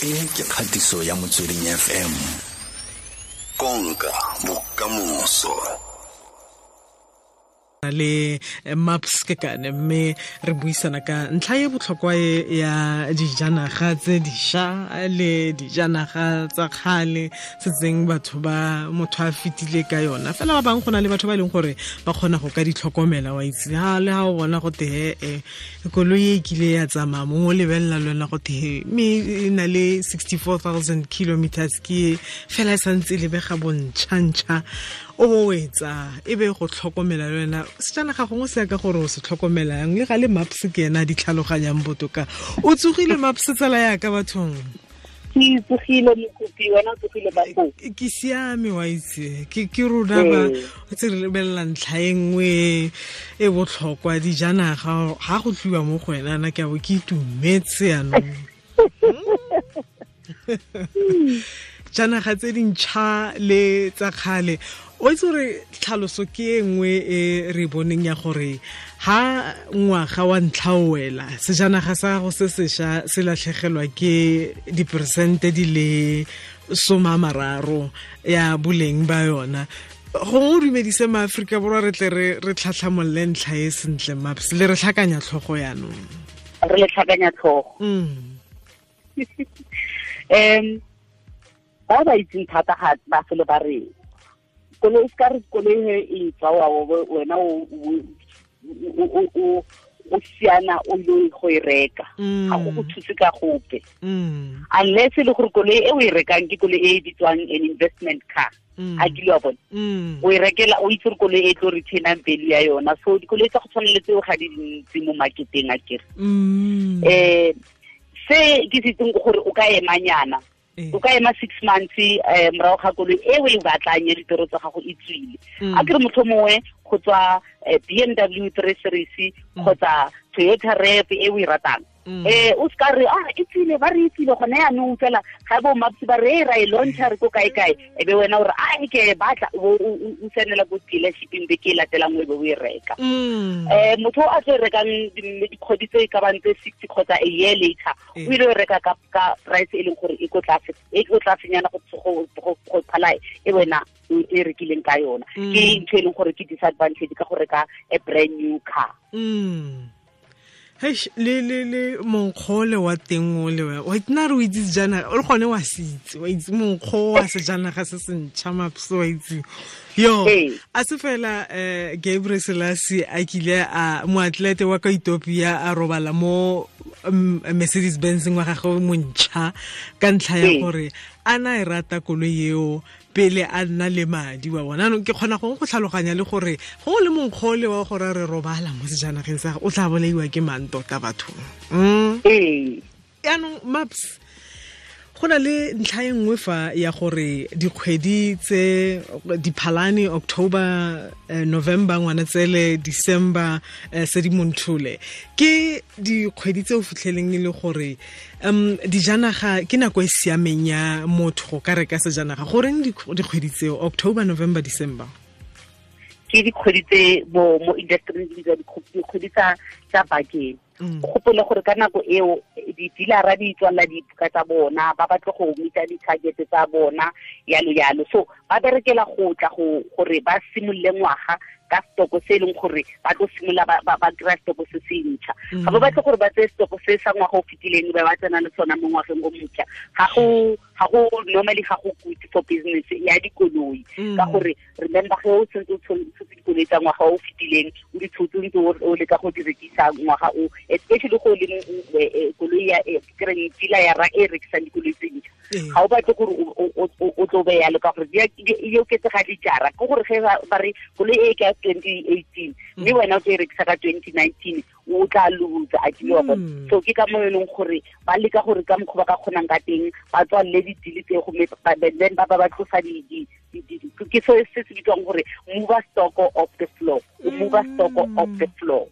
E ke kgatiso ya Motsweding FM. Konka bokamoso. Le Maps ke kane, mme re buisana ka ntlha e botlhokwa e ya dijanaga tse dišwa le dijanaga tsa kgale setseng batho ba motho a fetile ka yona. Fela ba bangwe go na le batho ba e leng gore ba kgona go ka ditlhokomela, wa itse ha le ha o bona go te e koloi e kile ya tsamaya, mongwe o lebelela le wena go te mme e na le 64,000 kilometers, ke fela e santse e lebega bontšhantšha, o bo etsa e be go tlhokomela le wena sejanaga gongwe se ya ka gore o se tlhokomelang. Le ga le Maps ke ena a di tlhaloganyang botoka. O tsogile Maps, tsala yaka bathong? Ke tsogile mokopi, wena o tsogile ba foo? Ke siame, wa itse ke rona ba tse re lebelela ntlha e nngwe e botlhokwa, dijanaga. Ga go tliwa mo go wena na ke a bo ke itumetse yanong. Janaga tse dintšha le tsa kgale, o itse gore tlhaloso ke e nngwe e re boneng ya gore ha ngwaga wa ntlha o wela, sejanaga sa gago se sešwa se latlhegelwa ke diperesente di le 30 ya boleng ba yona. Gongwe o dumedise maAforika Borwa, re tle re tlhatlhamolole ntlha e sentle. Maps, le re tlhakanya tlhogo yanong. Re le tlhakanya tlhogo. Ba ba itseng thata ga ba fele ba re koloi se ka re koloi he e tswa, wa wena o siana o ile go e reka, ga go go thuse ka gope, unless e le gore koloi e o e rekang ke koloi e e bitswang an investment car. A kile wa bona o e rekela, o itse gore koloi e tlo retainang value ya yona. So dikoloi tsa go tshwana le tseo ga di dintsi mo marketeng, a kere. Se ke se itseng ke gore o ka emanyana, o ka ema 6 months morago ga koloi e o e batlang ya ditoro tsa gago e tswile. A kere motho mongwe go tswa BMW 3 Series kgotsa Toyota RAV e o e ratang, o se ka re ah, e tswile, ba re e tswile gone yaanong fela ga bo Maps ba re e ra e launcha re ko kae kae, e be wena o re a ke batla, o tsenela ko dealershipeng be ke e latelang, o be o e reka. Motho o a tlo e rekang dikgwedi tse e ka bang tse 6 kgotsa a year later, o ile o reka ka price e leng gore e ko tlase, e ko tlasenyana go phala e wena e rekileng ka yona. Ke ntho e leng gore ke disadvantage ka go reka a brand new car. Heish, le monkgo le wa teng o le wa nna re o itse sejanaga o le gone wa se itse, wa itse monkgo wa sejanaga se se ntšha, Maps, wa itse yo a se fela. Gabriel Selassie a kile a moatlete wa ka Ethiopia a robala mo Mercedes Benz wa gagwe montšha ka ntlha ya gore a na e rata koloi eo pele a nna le madi wa bona. Anong ke kgona gongwe go tlhaloganya le gore gongwe le monkgole wa gore re robala mo sejanageng sa o tla bolaiwa ke mang tota bathong. Yaanong Maps, go na le ntlha e nngwe fa ya gore dikgwedi tse Diphalane, October, November, Ngwanatsele, December, Sedimonthole, ke dikgwedi tse o fitlheleng e le gore dijanaga ke nako e siameng ya motho go ka reka sejanaga. Goreng dikgwedi tseo, October, November, December? Ke dikgwedi tse mo industry di bitswa dikgwedi tsa bakeng. O gopole gore ka nako eo di-dealera di tswalela dibuka tsa bona, ba batle go meeta di-target tsa bona, yalo yalo. So ba berekela go tla go gore ba simolole ngwaga ka stoko se e leng gore ba tlo simolola ba kry-a stoko se se ntšha. Ga ba batle gore ba tseye stoko se sa ngwaga o fetileng ba tsena le sona mo ngwageng o motšha. Ga go normally, ga go good for business ya dikoloi, ka gore remember, ge o sentse o tshotse dikoloi tsa ngwaga o fetileng, o di tshotse ntse o leka go di rekisa ngwaga o, especially go leng koloi ya kereng dealer ya ra e rekisang dikoloi tse ntšha, ga o batle gore o tlo be yalo, ka gore e oketsega dijara. Ke gore ge ba re koloi e ke ya 2018 mme wena o tlo e rekisa ka 2019, o tla losa, a kile wa bona. So ke ka mo e leng gore ba leka gore ka mokgwa ba ka kgonang ka teng ba tswalele di-deal tse gomme then ba tlosa ke se se bitswang gore move stock off the floor, o move stock off the floor.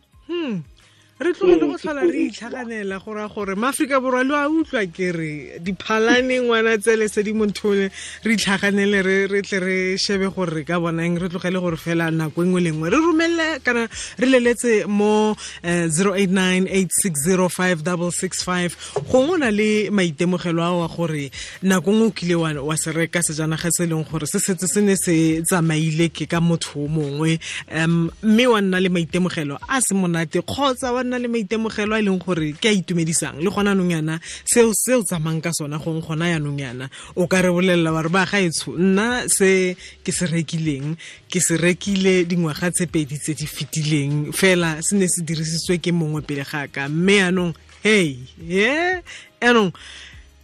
Re tlogele go tlhola re itlhaganela go raya gore maAforika Borwa lo a utlwa ke re diphalane ngwana tsele Sedimonthole re itlhaganele re tle re shebe gore re ka bonang re tlogele gore fela nako engwe le nngwe re romelle kana re leletse mo 0898605665 gongwe o na le maitemogelo a wa gore nako nngwe o kile wa se reka sejanaga se e leng gore se setse se ne se tsamaile ke ka motho o mongwe mme wa nna le maitemogelo a se monate kgotsa wa nna le maitemogelo a e leng gore ke a itumedisang le gona anong yana seo tsamayng ka sona gongwe gona yanong yana o ka re bolelela wa re ba gaetsho nna se ke se rekileng ke se rekile dingwaga tse pedi tse di fetileng fela se ne se dirisitswe ke mongwe pele ga ka mme yanong hey ye anong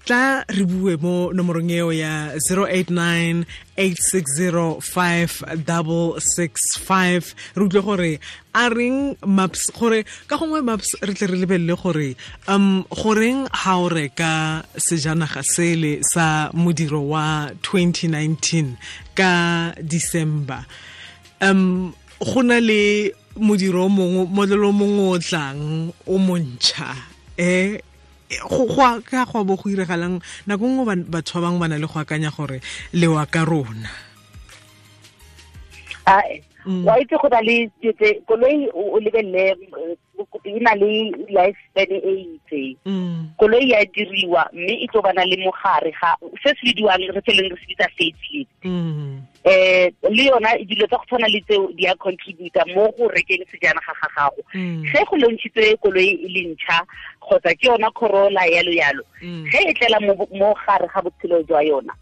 tla re bue mo nomorong eo ya 0898605665 re utlwe gore a reng maps gore ka gongwe maps re tle re lebelele gore goreng ha o reka sejanaga sele sa modiro wa 2019 ka December go na le modiro o mongwe modelo o mongwe o tlang o montšha go ka go bo go iregalang nako nngwe batho ba bangwe ba na le go akanya gore lewa ka rona wa itse go na le koloi o lebelele e na le lifespan e itseng koloi ya diriwa mme e tlo bana le mogare ga se se bidiwang re tseleng re se bitsa facelift le yona dilo tsa go tshwana le tseo di a contributa mo go rekeng sejanaga ga gago ge go launchitswe koloi e le ntšha kgotsa ke yona Corolla yalo yalo ge e tlela mo gare ga botshelo jwa yona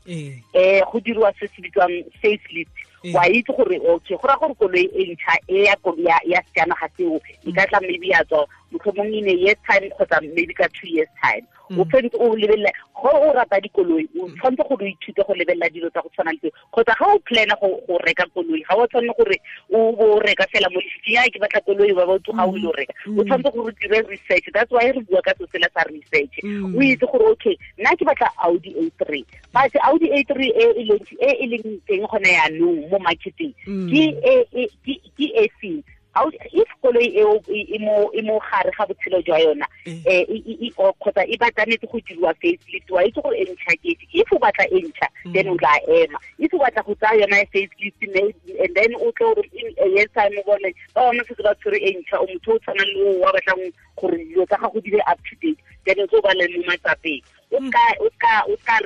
go diriwa se se bitswang facelift wa itse gore okay go ra gore koloi e ntšha e ya ya sejanaga seo e ka tla maybe ya tswa motlhomong in a year's time kgotsa maybe ka 2 years time o tshwanetse o lebelela go o rata dikoloi o tshwanetse gore o ithute go lebelela dilo tsa go tshwana le tseo kgotsa ga o plana go reka koloi ga o tshwanne gore o bo reka fela mo lefifing ya ke batla koloi ba ba tsoga o ile o reka o tshwanetse gore o dire research. That's why re bua ka se sela sa research o itse gore okay nna ke batla Audi A3 but Audi A3 e e leng teng gone yaanong mo marketing ke e feng. If koloi eo e mo gare ga botshelo jwa yona kgotsa e batlanetse go diriwa facelift wa itse gore e ntšha ke efe. If o batla e ntšha then o tla ema, if o batla go tsaya yona facelift and then o tlo gore in a year's time o bone ba bangwe setse ba tshwere e ntšha o motho o tshwanang le o wa batlang gore dilo tsa gago di be up to date then o tlo ba le mo matsapeng o ka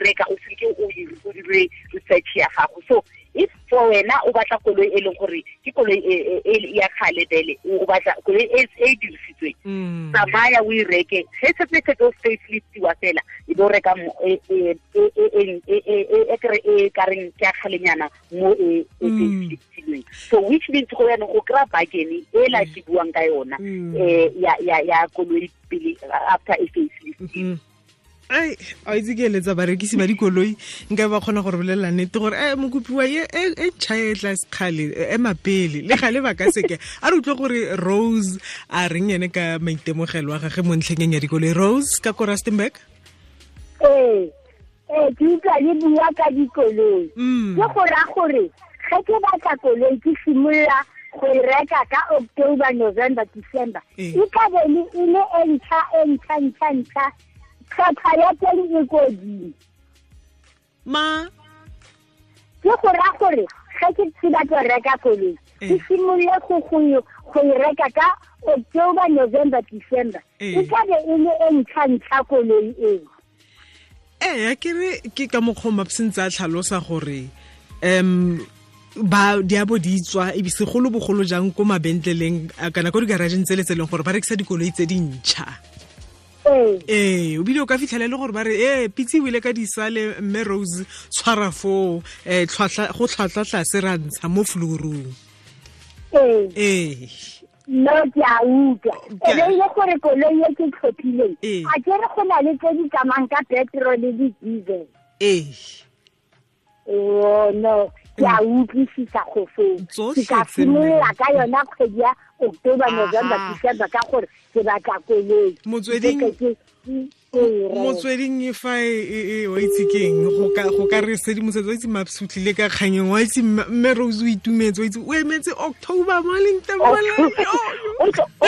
reka o seke o dire research ya gago. So if for wena o batla koloi e leng gore ke koloi e ya kgale bele o batla koloi e e dirisitsweng tsamaya o e reke ge setse se tlo faceliftiwa fela e bo reka e kere e ka reng ke ya kgalenyana mo e faceliftilweng. So which means go yana go kry-a bargain e la ke buang ka yona ya koloi pele after e faceliftiwa. Ai a itse ke eletsa barekisi ba dikoloi nka ba kgona gore bolelela nnete gore mokopiwa e ntšha e tla sekgale ema pele le gale ba ka seke a re utlwe gore Rose a reng ene ka maitemogelo a gage mo ntlheng ya dikoloi. Rose ka ko Rustenburg. Ee ke utlwa le bua ka dikoloi ke go raya gore ge ke batla koloi ke simolola go e reka ka October, November, December e ka be e le e ntšha e ntšha ntšha ntšha tlhwatlhwa ya teng e kodimo. Ma ke go raya gore ge ke batla reka koloi ke simolole go e reka ka October, November, December e ka be e le e ntšha ntšha koloi eo. Ee ke re ke ka mokgwa Maps ntse a tlhalosa gore ba di a bo di tswa e segolo bogolo jang ko mabentleleng kana ko digarageng tse le tse leng gore ba rekisa dikoloi tse dintšha. Ee o bile o ka fitlhela le gore ba re pitse o ile ka disale mme Rose tshwara foo go tlhwatlhwa tlase ra ntsha mo florong. Ee no ke a utlwa e be ile gore koloi e ke tlhophileng a ke re go na le tse di tsamayng ka petrol le diesel. Ee oh no ke a utlwisisa go foo ke ka simolola ka yona kgwedi ya October, November, December ka gore ke batla koloi. Motsweding Motsweding fa e wa itse keng go ka re sedimosetso wa itse Maps o tlile ka kganyeng wa itse mme Rose o itumetse wa itse o emetse October mo leng teng o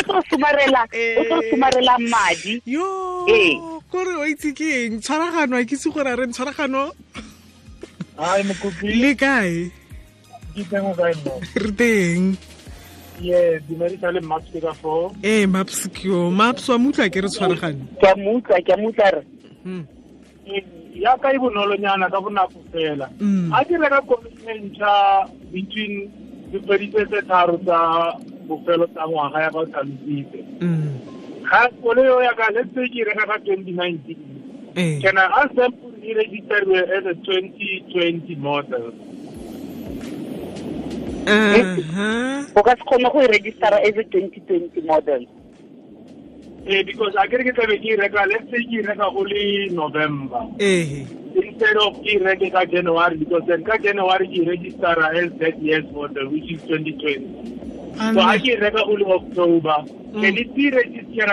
tlo somarela madi yo kore wa itse keng tshwaragano a ke itse gore a re tshwaragano. Hi Mokopi, le kae? Ke teng o kae mo? Re teng. Ye, dumedisa le Maps ka foo. Ee, Maps ke yo. Maps wa mutla ke re tshwaragane. Ke a mutla re. Ya ka e bonolonyana ka bonako fela. A ke reka koloi e ntšha between dikgwedi tse tharo tsa bofelo tsa ngwaga ya ka o tlhalositse. Ga koloi eo ya ka, let's say ke reka ka 2019. Can I ask them to register as a 2020 model? O ka se kgone go e registera as a 2020 model. Because I ke tlabe ke reka, let's say ke reka go le November. Instead of ke reke ka January, because then ka January ke registera as that year's model, which is 2020. So I ke reka go le October. Can it be registered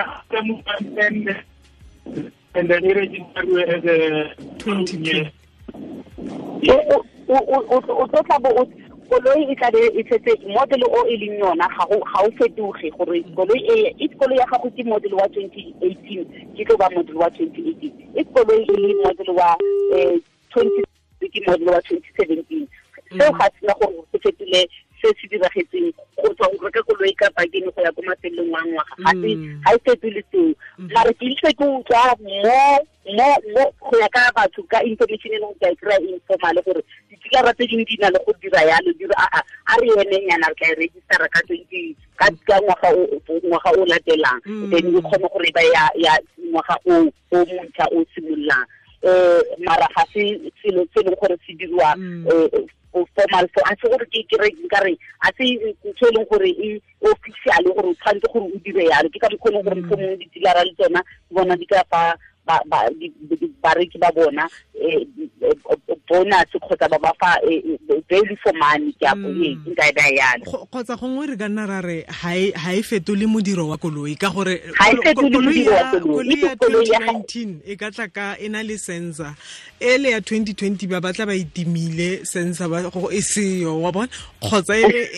and then register as a 2020? O tla bo koloi e tla be e setse model o e leng yona ga o fetoge gore koloi e koloi ya gago ke model wa 2018 ke tlo ba model wa 2018, e koloi e le model wa 20 ke model wa 2017. Seo ga sena gore se fetole se se diragetseng go tswa go reka koloi ka bakeng go ya ko mafelong wa ngwaga, ga e fetole seo. Mare ke itse ke utlwa mo go ya ka batho ka information e leng ka e kry-a informal gore dikilara tse dingwe di na le go dira yalo, di re a re emenyana re tla e registera ka 20 ka ngwaga o latelang, then e kgone gore ba ya ngwaga o montšha o simololang. Mara ga se selo se leng gore se diriwa formal, so a se gore ke re nkare a se ntho e leng gore e official gore o tshwanetse gore o dire yalo. Ke ka mokgwa e leng gore mohlomongwe di-dealer-a le tsona bona di ka fa bareki ba bona bonus kgotsa ba ba fa value for money ke nka e baya yalo. Kgotsa gongwe re ka nna ra re ha e fetole modiro wa koloi ka gore koloi ya 2019 e ka tla ka e na le sensor, ele ya 2020 ba batla ba itimile sensor ba go e seyo wa bona, kgotsa e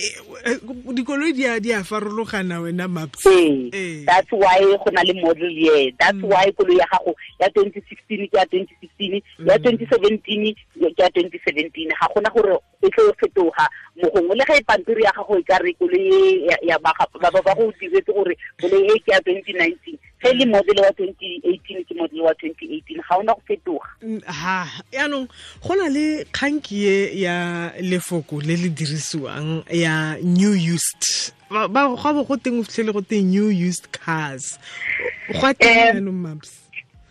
dikoloi di a farologana wena Maps. That's why go na le model year, that's why koloi ya gago ya 2016 ke ya 2016, ya 2017 ke ya 2017, ga gona gore e tlo fetoga mogongwe le ga e pampiri ya gago e ka re koloi ya ba go diretse gore koloi e ke ya 2019, ge le model wa 2018 ke model wa 2018, ga ona go fetoga. Ha yaanong go na le kganki e ya lefoko le le dirisiwang ya new used, ba go bo go teng o fitlhele go teng new used cars, go a teng yaanong Maps?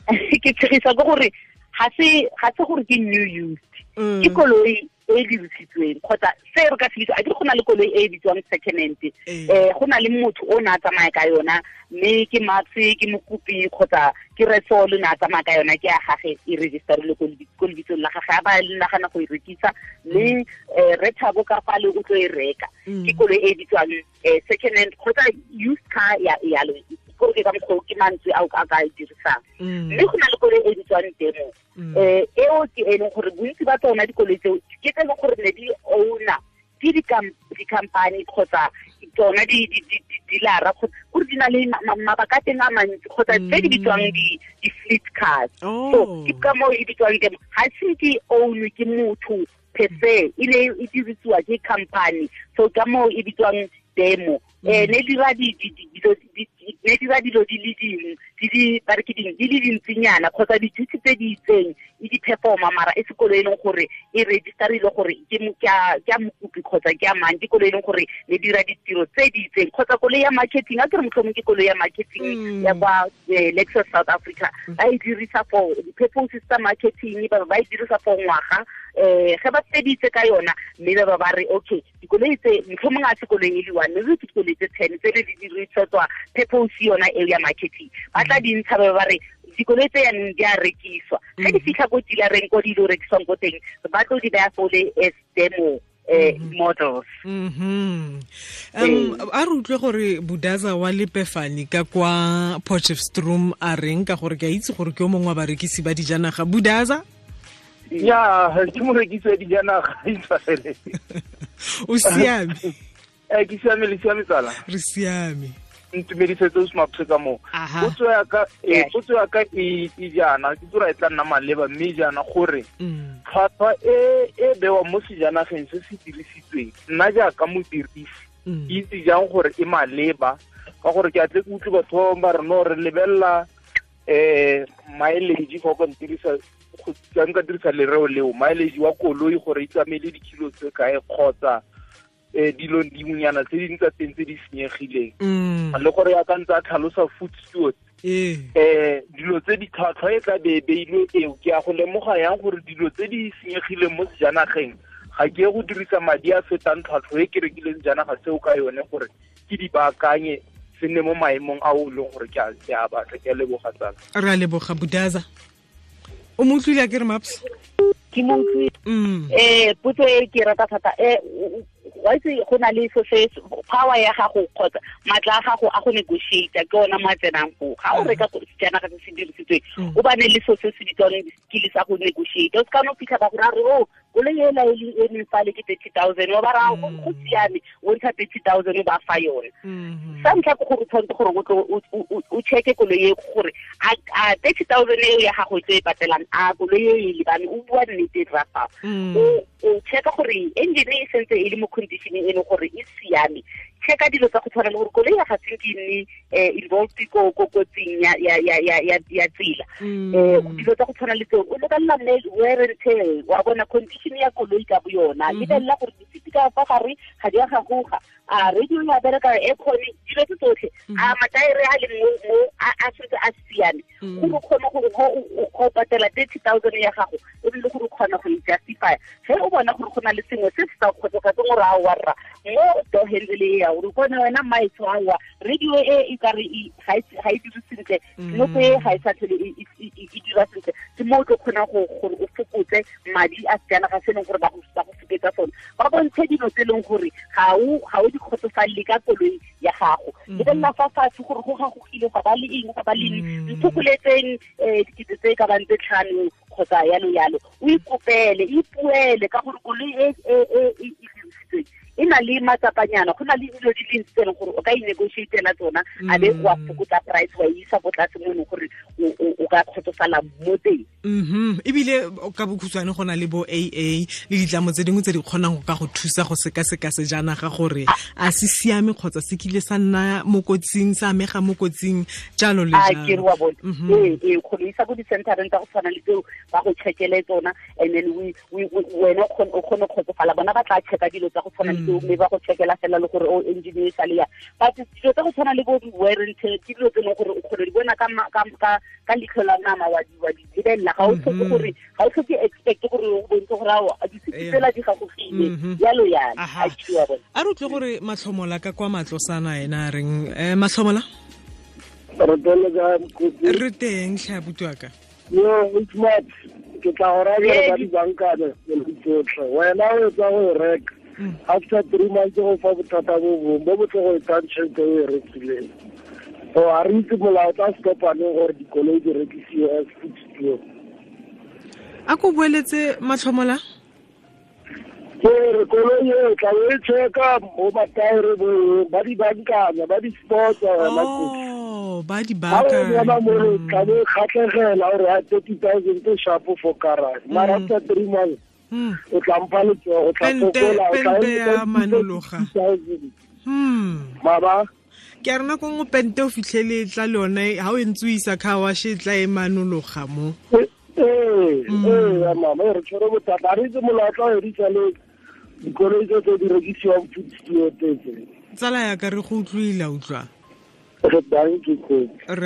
Ke tshegisa ke gore ga se gore ke new used, ke koloi e dirisitsweng kgotsa se re ka se bitsa, a ke go na le koloi e bitswang second hand, go na le motho o na a tsamaya ka yona mme ke Maps ke Mokopi kgotsa ke Resol na a tsamaya ka yona, ke ya gage e registerile ko lebitsong la gage, a ba nagana go e rekisa mme re Thabo ka fale o tlo e reka, ke koloi e bitswang second hand kgotsa used car ya yalo, gore ke ka mokgwa ke mantswe a ka e dirisang. Mme go na le koloi e bitswang demo, eo ke e leng gore bontsi ba tsona dikoloi tseo ke tse e leng gore ne di owner ke di-company kgotsa tsona di-dealer-a gore di na le mabaka a teng a mantsi kgotsa tse di bitswang di-fleet cars. So ke ka moo e bitswang demo, ga se ke ownwe ke motho per se, e ne e dirisiwa ke company, so ka moo e bitswang demo. Ne dira dilo di le dingwe di ba re ke ding di le dintsinyana kgotsa di-duty tse di itseng e di performa, mara e se koloi e leng gore e registerile gore ke ya Mokopi kgotsa ke ya mang, ke koloi e leng gore ne dira ditiro tse di itseng kgotsa koloi ya marketing, a ke re mohlomong ke koloi ya marketing ya kwa Lexus South Africa, ba e dirisa for di-purposes tsa marketing, ba e dirisa for ngwaga, ge ba feditse ka yona mme ba ba re okay dikoloi tse mohlomong a se koloi e le one, mme ke dikoloi tse 10 tse di dirisetswa purpose yona eo ya marketing, ba tla di ntsha ba re dikoloi tse yanong di a rekiswa, ge di fitlha ko dealereng ko di lo rekiswang ko teng ba tlo di baya fole as demo models. A re utlwe gore Budaza wa Lepefani ka kwa Potchefstroom a reng, ka gore ke a itse gore ke o mongwe wa barekisi ba dijanaga. Budaza? Ya, ke morekisi wa dijanaga. O siame? Ke siame, le siame tsala? Re siame. Ntumedisetse o se ka moo. Potso ya ka e jaana, ke tsora e tla nna maleba mme jaana gore tlhwatlhwa e bewa mo sejanageng se se dirisitsweng, nna jaaka modirisi ke itse jang gore e maleba, ka gore ke atle ke utlwe batho ba re no re lebelela mileage fa o ka ntirisa, nka dirisa lereo leo, mileage wa koloi gore e tsamaile dikilo tse kae kgotsa dilo dingwenyana tse dingwe tsa teng tse di senyegileng, le gore ya ka ntse a tlhalosa food steward dilo tse di tlhwatlhwa e tla be beilwe eo, ke a go lemoga yang gore dilo tse di senyegileng mo sejanageng ga ke ye go dirisa madi a fetang tlhwatlhwa e ke rekileng sejanaga seo ka yone gore ke di baakanye se nne mo maemong a o leng gore ke a batla. Ke a leboga tsala. Re a leboga Budaza. O mo utlwile a ke re Maps? Ke mo utlwile. Potso e ke rata thata. Wa itse go na le se power ya gago kgotsa matla a gago a go negotiate ke ona mo a tsenang foo. Ga o reka sejanaga se se dirisitsweng, o bane le so se se bitswang skill sa go negotiate. O se ka no fitlha ba go ra re o koloi ela e emeng fale ke 30,000, wa ba ra go siame, o ntsha 30,000 ba fa yone. Sa ntlha ke gore o tshwanetse gore o check-e koloi e gore a 30,000 eo ya gago e tlo e patelang, a koloi e e lebane, o bua nnete ra fa. O checka gore engine e sentse e le mo condition e leng gore e siame. Checka dilo tsa go tshwana le gore koloi ya ga se ke nne involved ko kotsing ya tsela. Dilo tsa go tshwana le tseo o lebelela wear and tear, wa bona condition ya koloi ka bo yona, lebelela gore disiti ka fa gare ga di a gagoga, a radio ya bereka, aircon, dilo tse tsotlhe, a mataere a leng mo a sentse a siame, gore o kgone gore go patela 30,000 ya gago ebile gore o kgona go e justify. Ge o bona gore go na le sengwe se se sa kgotsofatseng gore a wa rra mo door handle e ya gore kone wena maitsho a wa radio e ka re ga e dire sentle, nopo e ga e sa tlhole e dira sentle, ke mo o tlo kgonang gore o fokotse madi a sejanaga se e leng gore ba go foketsa sone. Ba bontshe dilo tse e leng gore ga o di kgotsofalele ka koloi ya gago. Lebelela fa fatshe gore go gagogile, ga ba le eng, ga ba le eng, nthokoletseng dikete tse ka bang tse 5 kgotsa yalo yalo. O ikopele, ipuele ka gore koloi e e dirisitsweng e na le matsapanyana, go na le dilo di le ntsi tse e leng gore o ka inegotiatela tsona, a be wa fokotsa price wa isa ko tlase mo e leng gore o ka kgotsofala mo teng. Ebile ka bokhutshwane go na le bo AA le ditlamo tse dingwe tse di kgonang go ka go thusa go sekaseka sejanaga gore a se siame kgotsa se kile sa nna mo kotsing, sa amega mo kotsing, jalo le jalo. A ke re wa bone. Ee, kgone isa ko di-centereng tsa go tshwana le tseo ba go checkele tsona, and then wena o kgone go kgotsofala. Bona ba tla checka dilo tsa go tshwana le tseo, mme ba go checkela fela le gore o engine e sale ya. But dilo tsa go tshwana le bo wear and tear ke dilo tse e leng gore o kgone di bona ka leitlho la nama, wa di lebelela. Ga o tlhoke gore ga o tlhoke expect gore o bontshe gore ao disiti tsela di gagogile yalo yalo. A re utlwe gore Matlhomola ka kwa Matlosana ena a reng. Matlhomola? Re teng tlhe abuti wa ka. Yo, it's not. Ke tla go raya ba di bankane tsotlhe. Wena o etsa go e reka. After 3 months go fa bothata bo bongwe bo bo tlo go etsang tšhelete o e rekileng. So a re itse molao tla stopaneng gore dikoloi di rekisiwe as food steward. A ko boeletse Matlhomola? Ke re koloi e tla o e checka mo mataere bo ba di bankanya, ba di spotsa wena. Oh, ba di bankanya. Ga o bona mo re tla bo kgatlhegela gore a 30,000 ke sharp for garage. Mara after 3 months o tla mpha letsogo, o tla fokola, o tla ya manologa. Maba ke a rena ko nngwe pente o fitlhele tla le yone ha o ntse o isa car wash e tla e manologa mo. Ee, mama, re tshwere bothata. A re itse molao tla o edisa le dikoloi tse di rekisiwang food steward tse. Tsala ya ka re go utlwile, utlwa. Re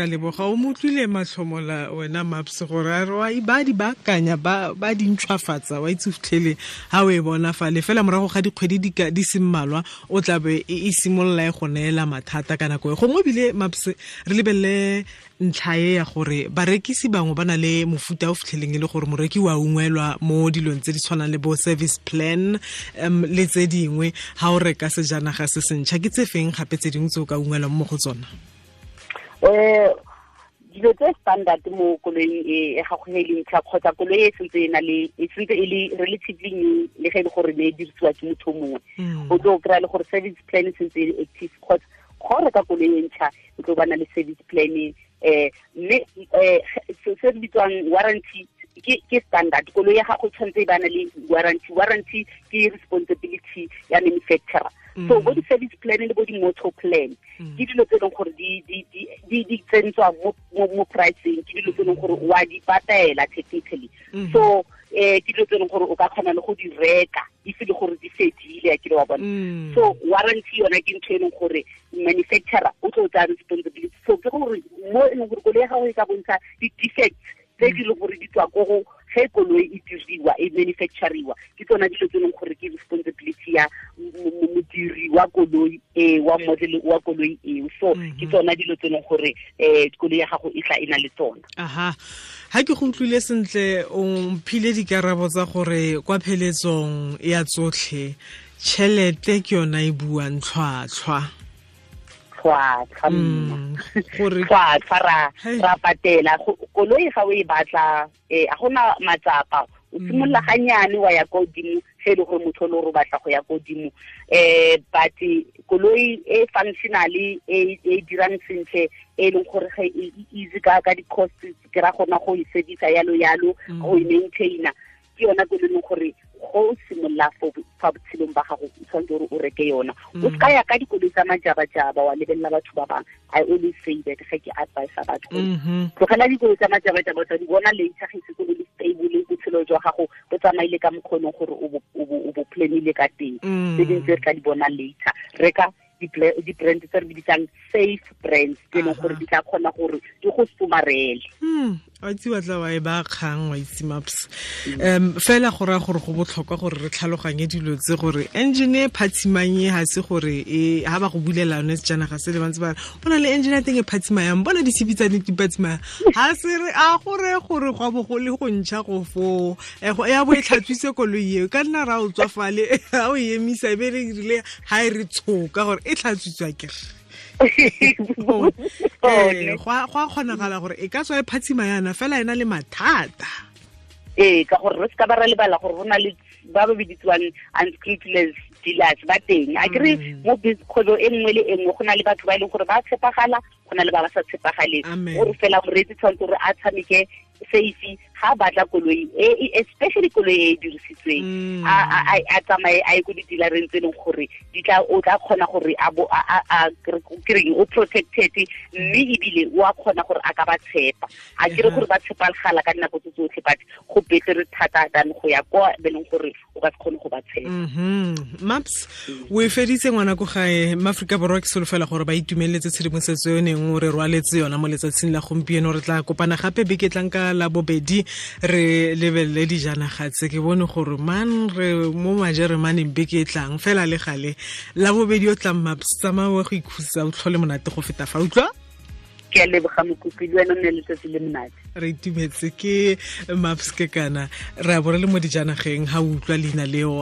a leboga. O mo utlwile Matlhomola wena Maps gore a re wa ba di baakanya, ba di ntšhwafatsa, wa itse fitlhele ha o e bona fale fela morago ga dikgwedi di se mmalwa o tla be e simolola e go neela mathata ka nako e gongwe. Ebile Maps re lebelele ntlha e ya gore barekisi bangwe ba na le mofuta o fitlheleng e le gore moreki wa ungwelwa mo dilong tse di tshwanang le bo service plan le tse dingwe ha o reka sejanaga se sentšha. Ke tse feng gape tse dingwe tse o ka ungwelwang mo go tsona? Dilo tse standard mo koloing e gago e leng ntšha kgotsa koloi e sentse e na le e sentse e le relatively new, le ge e le gore ne e dirisiwa ke motho mongwe, o tlo kry-a le gore service plan e sentse e le active, kgotsa go reka koloi e ntšha o tlo bana le service plan. Mme se se bitswang warranty ke standard. Koloi ya gago tshwanetse e bana le warranty. Warranty ke responsibility ya manufacturer. So bo di-service plan le bo di-motor plan ke dilo tse e leng gore di tsentswa mo pricing, ke dilo tse e leng gore wa di patela technically. So ke dilo tse e leng gore o ka kgona le go di reka if e le gore di fedile, a kile wa bona. So warranty yona ke ntho e leng gore manufacturer o tlo tsaya responsibility. So ke gore mo e leng gore koloi ya gago e ka bontsha di-defects tse di leng gore di tswa ko go ge koloi e diriwa, e manufacturiwa, ke tsona dilo tse e leng gore ke responsibility ya modiri wa koloi e, wa model wa koloi eo. So ke tsona dilo tse e leng gore koloi ya gago e tla e na le tsona. Aha, ha ke go utlwile sentle, o mphile dikarabo tsa gore kwa pheletsong ya tsotlhe tšhelete ke yona e buang tlhwatlhwa. Tlhwatlhwa tlhwatlhwa ra patela koloi ga o e batla, a gona matsapa, o simolola ganyane wa ya ko godimo ge e le gore motho o le gore o batla go ya ko godimo. But koloi e functionally e dirang sentle, e leng gore ge e easy ka di-cost, ke ra gona go e servisa yalo yalo, go e maintaina, ke yona koloi e leng gore go simolola fa botshelong ba gago o tshwanetse gore o reke yona. O se ka ya ka dikoloi tsa majabajaba wa lebelela batho ba bangwe. I always say that ge ke advise batho, tlogela dikoloi tsa majabajaba, tsa di bona later ge se le stable, botshelo jwa gago bo tsamaile ka mokgonong gore o bo planile ka teng. Tse dingwe tse re tla di bona later. Reka di-brand tse re bitsang safe brands, tse e leng gore di tla kgona gore di go somarele. Wa itse wa tla wa e ba kgang, wa itse Maps. Fela go raya gore go botlhokwa gore re tlhaloganye dilo tse, gore engine e phatsimang e ga se gore e ha ba go bulela yone sejanaga se le bantse ba re go na le engine ya teng e phatsimayang, bona ditshipi tsa di phatsimayang, ga se re a gore gore go bo go le go ntšha go foo ya bo e tlhatswitse koloi eo, ka nna ra o tswa fale ga o e emisa e be re rile ga e re tshoka gore e tlhatswitswa kere. Go a kgonagala gore e ka tswa e phatsima yana fela e na le mathata. Ee, ka gore re se ka ba ra lebala gore go na le ba ba biditsiwang unscrupulous dealers ba teng. A kere mo kgwebo e nngwe le e nngwe go na le batho ba e leng gore ba tshepagala, go na le ba ba sa tshepagaleng. Gore fela moreetsi tshwanetse gore a tshameke safe ga batla koloi e, especially koloi e dirisitsweng, a tsamaye a ye ko di-dealereng tse e leng gore di tla o tla kgona gore a bo a kereng o protected, mme ebile o a kgona gore a ka ba tshepa. A kere gore ba tshepagala ka dinako tse tsotlhe, but go betere thata than go ya kwa be leng gore o ka se kgone go ba tshepa. Maps, o e feditse ngwana ko gae. Maaforika Borwa ke solofela gore ba itumeletse tshedimosetso e neng o re rwaletse yona mo letsatsing la gompieno. Re tla kopana gape beke tlang ka la bobedi re lebelele dijanaga tse. Ke bone gore man re mo majeremaneng beke e tlang fela le gale la bobedi o tlang Maps, tsamaya o go ikhutsa, o tlhole monate go feta fa, utlwa? Ke a leboga Mokopi, le wena o nne letsatsi le monate. Re itumetse ke Maps ke kana re a bo re le mo dijanageng ha o utlwa leina leo.